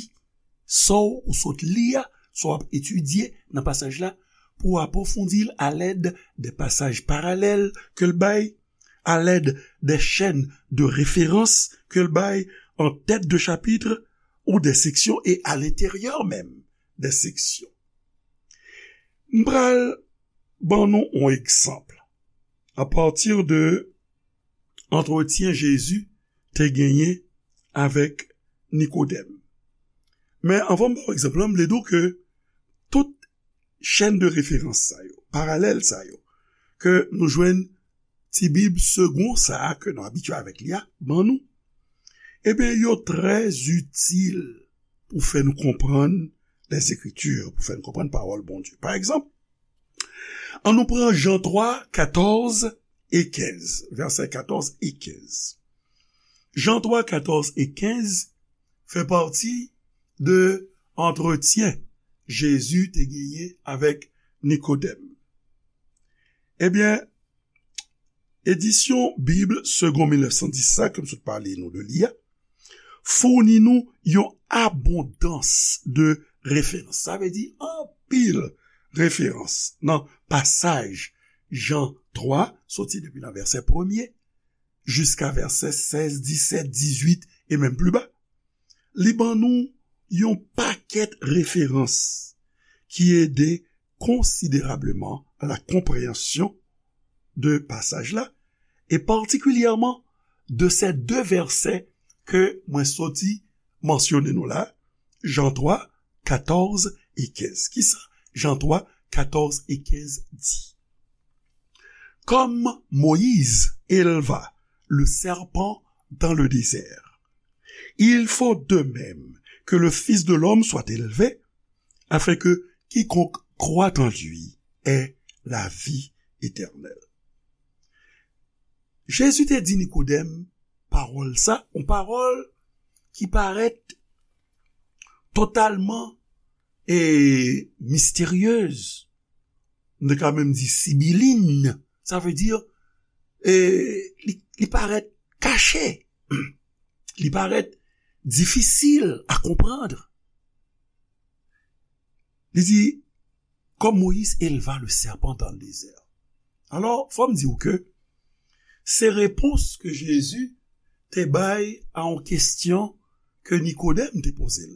sa w sot li a, sa w ap etidye nan pasaj la, pou w apwofondi l alèd de pasaj paralèl ke l bay, alèd de chèn de referans ke l bay an tèt de chapit ou de seksyon e a lenteryè menm de seksyon. M pral ban nou yon egzanp apati de antretyen Jezi te genyen avèk Nikodèm. Men anvan m ba w egzanp lan, m vle di w ke tout chèn de referans sa yo, paralèl sa yo, ke nou jwenn ti Bib Segond sa a ke nou abitye avèk li a, ban nou, ebyen, yo trè itil pou fè nou konprann Lèzekriti, pou fè nou konprann pawòl Bondye. Pa egzanp, ann nou pran Jan twa, katòz e kenz, vèsè katòz e kenz. Jan twa, katòz e kenz fè pati de antretyen Jezi te genyen avèk Nikodèm. Ebyen, edisyon Bib Segond mil nèf san dis sa, ke m sot pale nou de li a, founi nou yon abondans de referans. Sa vle di anpil referans nan pasaj Jan twa, soti depi nan vèsè premye jiska vèsè sèz, disèt, dizuit e menm pli ba. Li ban nou yon pakèt referans ki ede konsiderableman a la konpreyansyon de pasaj la, e patikilyèman de sè de vèsè ke mwen soti mansyone nou la, Jan twa, katòz e kenz. Kisa Jan twa, katòz e kenz di? Comme Moïse éleva le serpent dans le désert, il faut de même que le Fils de l'homme soit élevé, afin que quiconque croit en lui ait la vie éternelle. Jezi te di Nikodèm pawòl sa, yon pawòl ki parèt totalman e misteryez. nou te ka menm di sibilin. Sa vle di, e, li, li parèt kache. Li parèt difisil a konprann. Li di, comme Moïse éleva le serpent dans le désert. Alò, fò m di w ke se repons ke Jezi te bay a yon kesyon ke Nikodèm te poze l.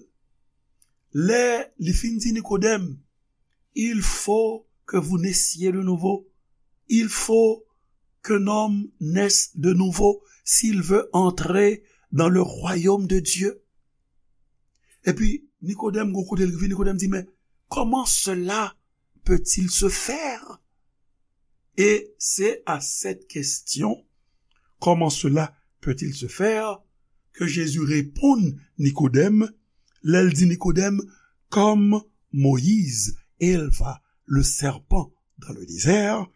Lè li fin di Nikodèm, il faut que vous naissiez de nouveau. Il faut qu'un homme naisse de nouveau s'il veut entrer dans le royaume de Dieu. Epi, Nikodèm, gon kote l rive, Nikodèm di, mais comment cela peut-il se faire? Et c'est à cette question, comment cela peut-il se faire, que Jésus répond Nikodèm, lè l di Nikodèm, comme Moïse éleva le serpent dans le désert,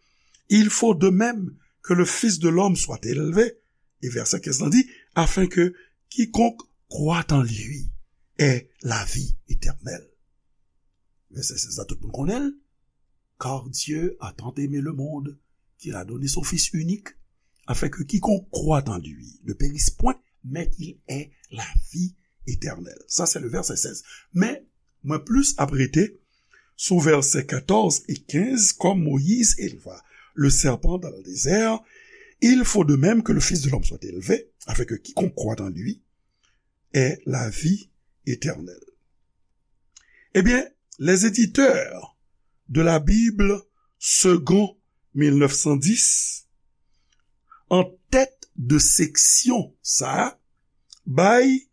il faut de même que le Fils de l'homme soit élevé. E vèsè kenz lan di, afin que quiconque croit en lui ait la vie éternelle. Vèsè sèz la, tout moun konnen l. Car Dieu a tant aimé le monde qu'il a donné son Fils unique, afin que quiconque croit en lui ne périsse point, mais qu'il ait la vie éternelle. Ça, c'est le verset seize. Men, mwen plis ap rete sou vèsè katòz e kenz, comme Moïse éleva le serpent dans le désert, il faut de même que le Fils de l'homme soit élevé, afin que quiconque croit en lui ait la vie éternelle. Eh bien, les éditeurs de la Bible Segond mil nèf san dis, an tèt de seksyon sa a, bay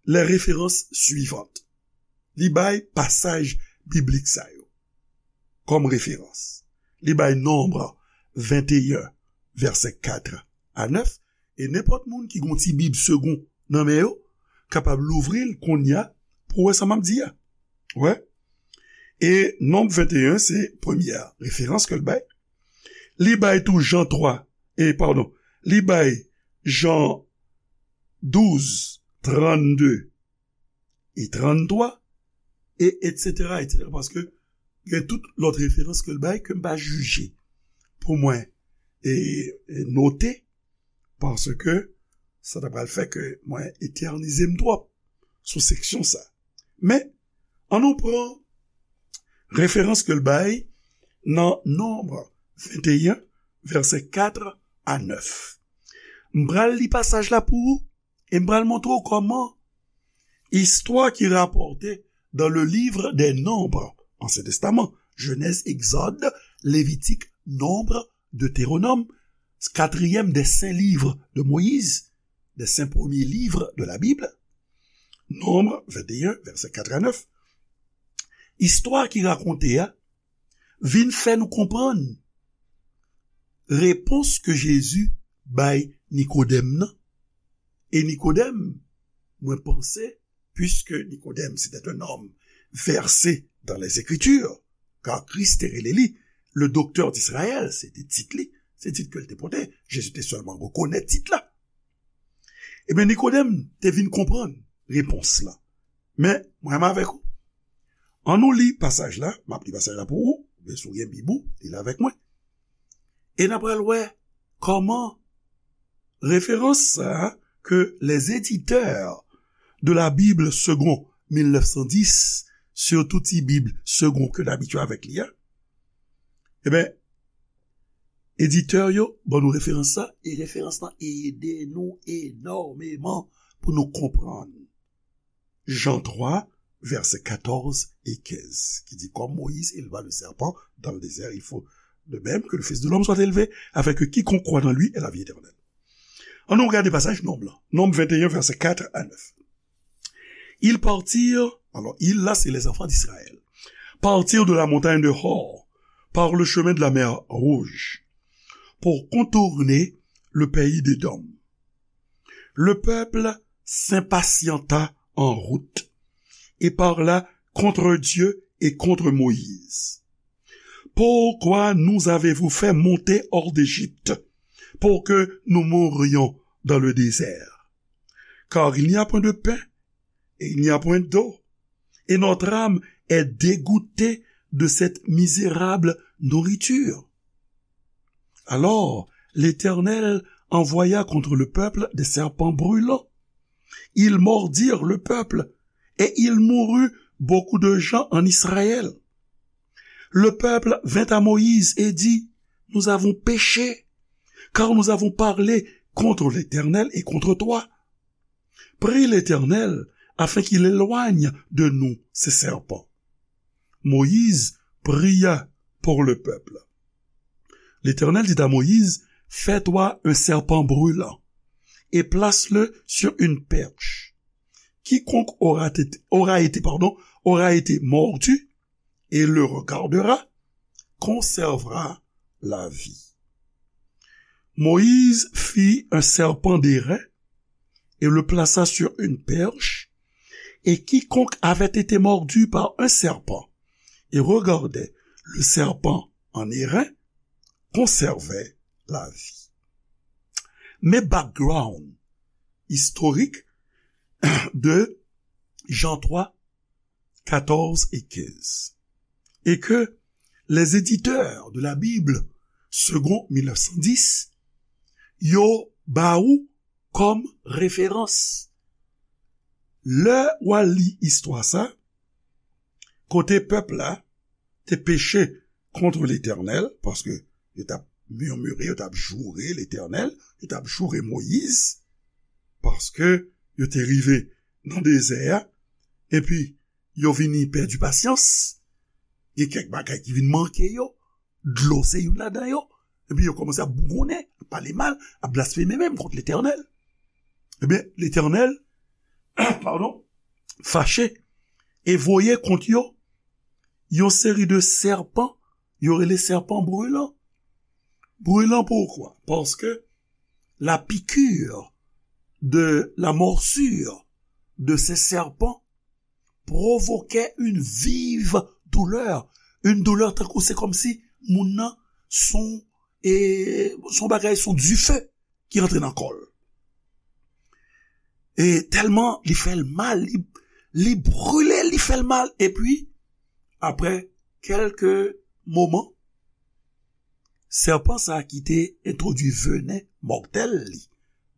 les références suivantes. Li bay pasaj biblik sa yo kòm referans. Li bay Nonb venteyen, vèsè kat a nèf, e nenpòt moun ki gon ti Bib Segond nan men yo, kapab louvri l kounye a pou wè sa m ap di a. Wè. E Nonb venteyen, se premyè referans ke l bay. Li bay tou Jan twa, e padon, li bay Jan douz, trannde e tranntwa, e etsetera, etsetera, paske gen tout lòt referans ke l bay ke m pa jije pou mwen e, e note, paske sa ta pral fè ke mwen etènize m twòp sou seksyon sa. Men, ann nou pran referans ke l bay nan Nonb venteyen, vèsè kat a nèf. M pral li pasaj la pou ou, e m pral montre w kòman istwa ki rapòte dans le livre des Nombres, Ansyen Testaman, Jenèz, Egzòd, Levitik, Nonb, Deteronòm, katriyèm des saints livres de Moïse, des cinq premiers livres de la Bible, Nonb venteyen, vèsè kat a nèf. Istwa ki rakonte a vin fè nou konprann repons ke Jezi bay Nikodèm nan. E Nikodèm, mwen panse, puisque Nikodèm, c'était un homme versé dans les Écritures, car Kris te rele li le docteur d'Israël, se te tit li, se tit ke l te pote, Jezi te sèlman rekonèt tit la. Ebyen, Nikodèm te vin konprann repons la. Men, mwen menm avèk ou, ann nou li pasaj la, m ap li pasaj la pou ou, oubyen si w gen Bib ou, li l avèk mwen. E n ap pral wè kòman referans sa a ke les éditeurs de la Bible Segond mil nèf san dis, sitou ti Bib Segond ke n abitye avèk li a, ebyen, editè yo ban nou referans sa, e referans lan ede nou enòmeman pou nou konprann Jan twa, vèsè katòz e kenz, ki di, comme Moïse éleva le serpent dans le désert, il faut de même que le Fils de l'homme soit élevé, afin que quiconque croit en lui ait la vie éternelle. Ann nou gade pasaj Nonb lan. Nonb venteyen, vèsè kat a nèf. Ils partirent, alors ils là, c'est les enfants d'Israël, partirent de la montagne de Hor par le chemin de la mer Rouge pour contourner le pays d'Édom. Le peuple s'impatienta en route et parla contre Dieu et contre Moïse. Pourquoi nous avez-vous fait monter hors d'Égypte pour que nous mourions dans le désert? Car il n'y a point de pain et il n'y a point d'eau, et notre âme est dégoûtée de cette misérable nourriture. Alors, l'Éternel envoya contre le peuple des serpents brûlants. Ils mordirent le peuple et il mourut beaucoup de gens en Israël. Le peuple vint à Moïse et dit, nous avons péché, car nous avons parlé contre l'Éternel et contre toi. Prie l'Éternel afin qu'il éloigne de nous ces serpents. Moïse pria pour le peuple. L'Éternel dit à Moïse, fais-toi un serpent brûlant et place-le sur une perche. Quiconque aura été, aura été, pardon, aura été mordu et le regardera conservera la vie. Moïse fit un serpent d'airain et le plaça sur une perche, et quiconque avait été mordu par un serpent et regardait le serpent en airain conservait la vie. Men background historique de Jean trois, quatorze et quinze. Et que les éditeurs de la Bible, second mille neuf cent dix, yo ba ou kòm referans. Lè w al li istwa sa, kote pèp la te peche kont Letènèl, paske yo t ap mimire, yo t ap joure Letènèl, yo t ap joure Moyiz, paske yo te rive nan dezè a, epi yo vini pèdi pasyans, gen kèk bagay ki vin manke yo, dlo se youn ladan yo, epi yo kòmanse ap bougonnen, ap pale mal, ap blasfeme menm kont Letènèl. Ebyen, Letènèl, padon, fache e voye kont yo yon seri de sèpan, yo rele sèpan brilan. Brilan poukwa? Paske la piqûre de la morsure de ces serpents provoquait une vive douleur. Une douleur tankou se kòmsi moun nan son, e, son bagay, son dife ki rantre nan kò l. E tèlman li fè l mal, li, li brile, li fè l mal. Epi, apre kèlke moman, sèpan sa a ki te entwodui venen mòtèl li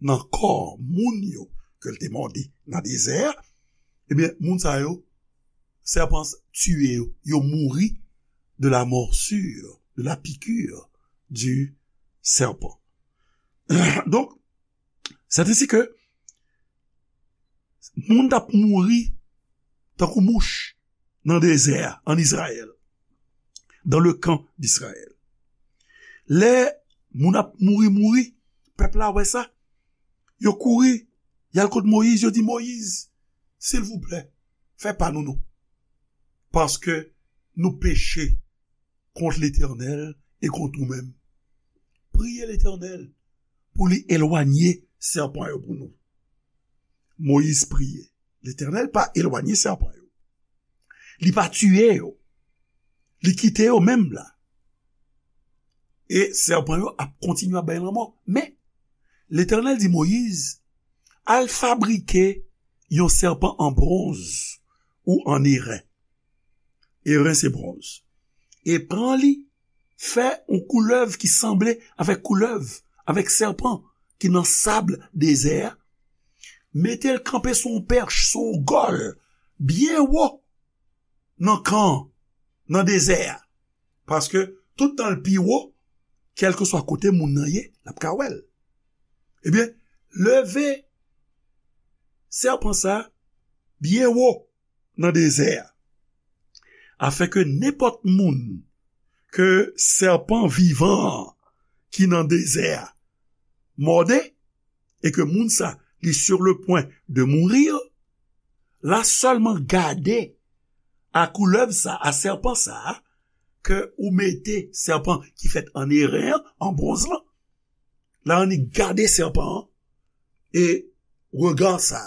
nan kò moun yo ke l te mòde nan dezè a, ebyen, moun sa yo, sèpan tiye yo, yo mouri de la morsure, de la piqûre du serpent. Donk, c'est ainsi que moun t ap mouri tankou mouch nan dezè a, an Izrayèl, dans le camp d'Israël. Lè moun ap mouri, mouri, pèp la wè sa, yo kouri, y al kot Moyiz, yo di, Moyiz, silvouplè, fè pa nou non, paske nou peche kont Letènèl e kont ou menm. Priye Letènèl pou li elwanye sèpan yo pou nou. Moyiz priye. Letènèl pa elwanye sèpan yo. Li pa tiye yo. Li kite yo menm la. E sèpan yo ap kontinye ap bay lanmò. Men, Letènèl di Moyiz, al fabrike yon sèpan an bwonz ou an eren. Eren se bwonz. E pran li, fè yon koulèv ki sanble avèk koulèv, avèk sèpan ki nan sab dezè a. Mete l kanpe sou yon pèch, sou yon gòl, byen wo nan kan, nan dezè a. Paske tout tan l pi wo, kèlkeswa kote moun nan ye, l ap ka wè l. Ebyen, leve sèpan sa byen wo nan dezè a, afin ke nenpòt moun ke sèpan vivan an ki nan dezè a mòde, e ke moun sa li sur le point de mourir, la sèlman gade a koulèv sa, a sèpan sa, ke ou mete sèpan ki fèt an eren an, an bwonz lan, la annik gade sèpan an, e rega sa,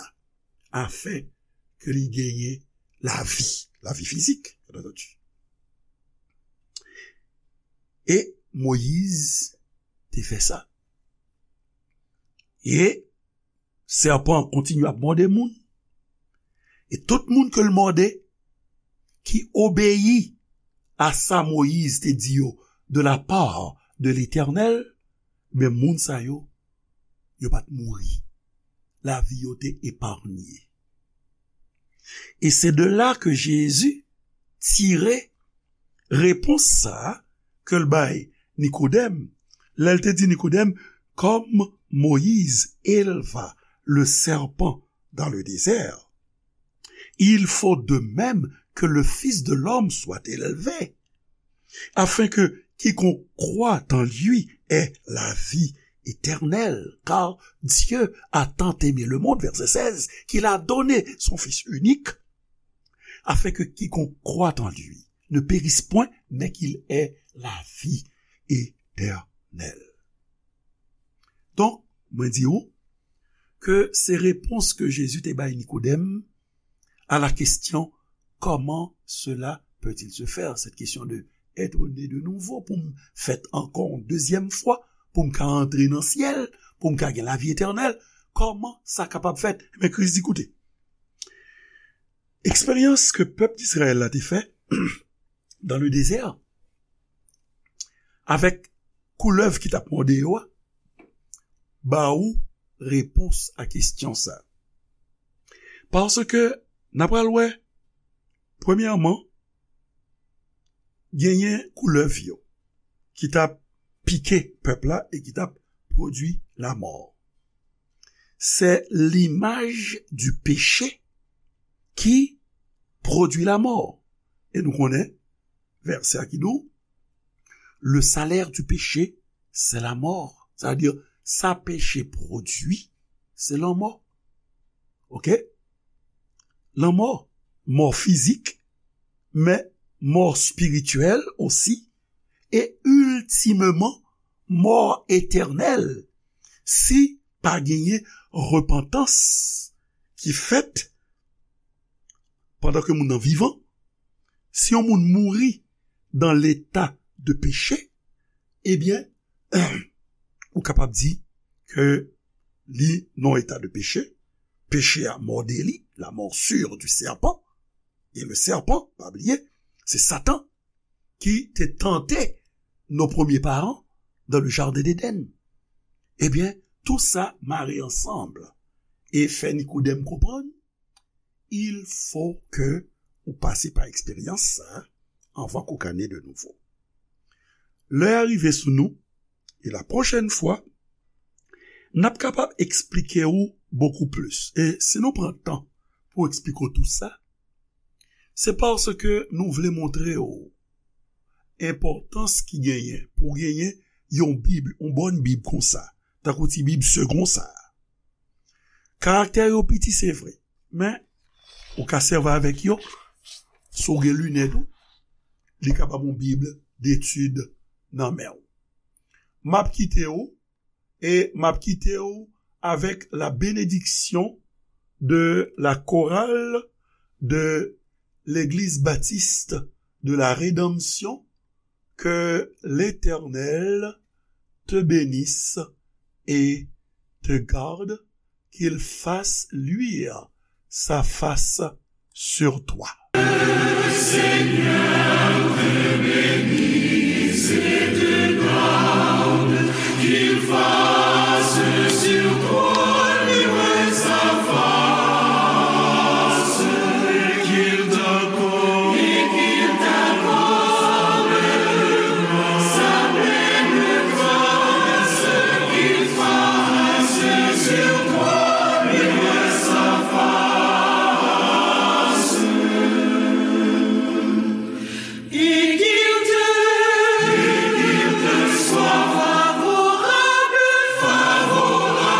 afin ke li genyen lavi, lavi fizik, bien entendu. E Moyiz te fè sa. E sèpan an kontinye ap mòde moun. E tout moun ke l mòde, ki obeyi a sa Moyiz te di yo de la part de Letènèl, men moun sa yo, yo pa t mouri. Lavi yo te epanye. E se de la ke Jezi tire repons sa a ke l bay Nikodèm, lè l te di Nikodèm, comme Moïse éleva le serpent dans le désert, il faut de même que le Fils de l'homme soit élevé, afin que quiconque croit en lui ait la vie éternelle. Car Dieu a tant aimé le monde, verset seize, qu'il a donné son Fils unique, afin que quiconque croit en lui ne périsse point, mais qu'il ait la vie éternelle. Donk, mwen di ou ke se repons ke Jezi te bay Nikodèm à la question, comment cela peut-il se faire? Cette question de être né de nouveau, pou m fèt ankò yon dezyèm fwa, pou m ka antre nan syèl, pou m ka gen lavi etènèl, kòman sa kapab fèt? Men Kris di, koute, eksperyans ke pèp Dizrayèl la te fè dans le désert, avèk koulèv ki t ap mòde yo a, ba ou repons a kesyon sa. Paske n ap pral wè, premyèman, genyen koulèv yo ki t ap pike pèp la e ki t ap pwodui lamò. C'est l'image du péché qui produit la mort. E nou konnen vèsè a ki di w, le salaire du péché, c'est la mort. Sa vle di, sa peche pwodui, se lanmò. Oke? Lanmò, mò fizik, men mò espirityèl osi, e iltimeman, mò etènèl, si pa genyen repantans ki fèt pandan ke moun nan vivan, si yon moun mouri dans l'état de péché, ebyen, ou kapab di ke li nan eta de peche, peche a mòde li, la morsure du serpent, et le serpent, pa bliye, se Satan ki te tante nos premiers parents dans le jardin d'Éden. Ebyen, tou sa mare ansanm e fè Nikodèm konprann, il faut que ou pase pa eksperyans sa anvan ke w ka ne de nouvo. Lè a rive sou nou, e la pwochèn fwa, n ap kapab eksplike w bokou plis. E si nou pran tan pou eksplike w tou sa, se paske nou vle montre w enpòtans ki genyen pou w genyen yon Bib, yon bòn Bib konsa, tankou ti Bib segon sa a. Karaktè yo piti, se vre, men ou ka sèvi avèk yo. Si w gen linèt ou, li ka ba w yon Bib detid nan men w. M ap kite w, e m ap kite w avec la bénédiction de la chorale de l'Église baptiste de la Rédemption. Que l'Éternel te bénisse et te garde, qu'il fasse luire sa face sur toi. Seigneur te bénisse et te garde, qu'il fasse sur toi luire sa face, et qu'il t'accorde, et qu'il t'accorde sa pleine grâce, qu'il fasse sur toi luire sa face. Et qu'il te, et qu'il te soit favorable, favorable.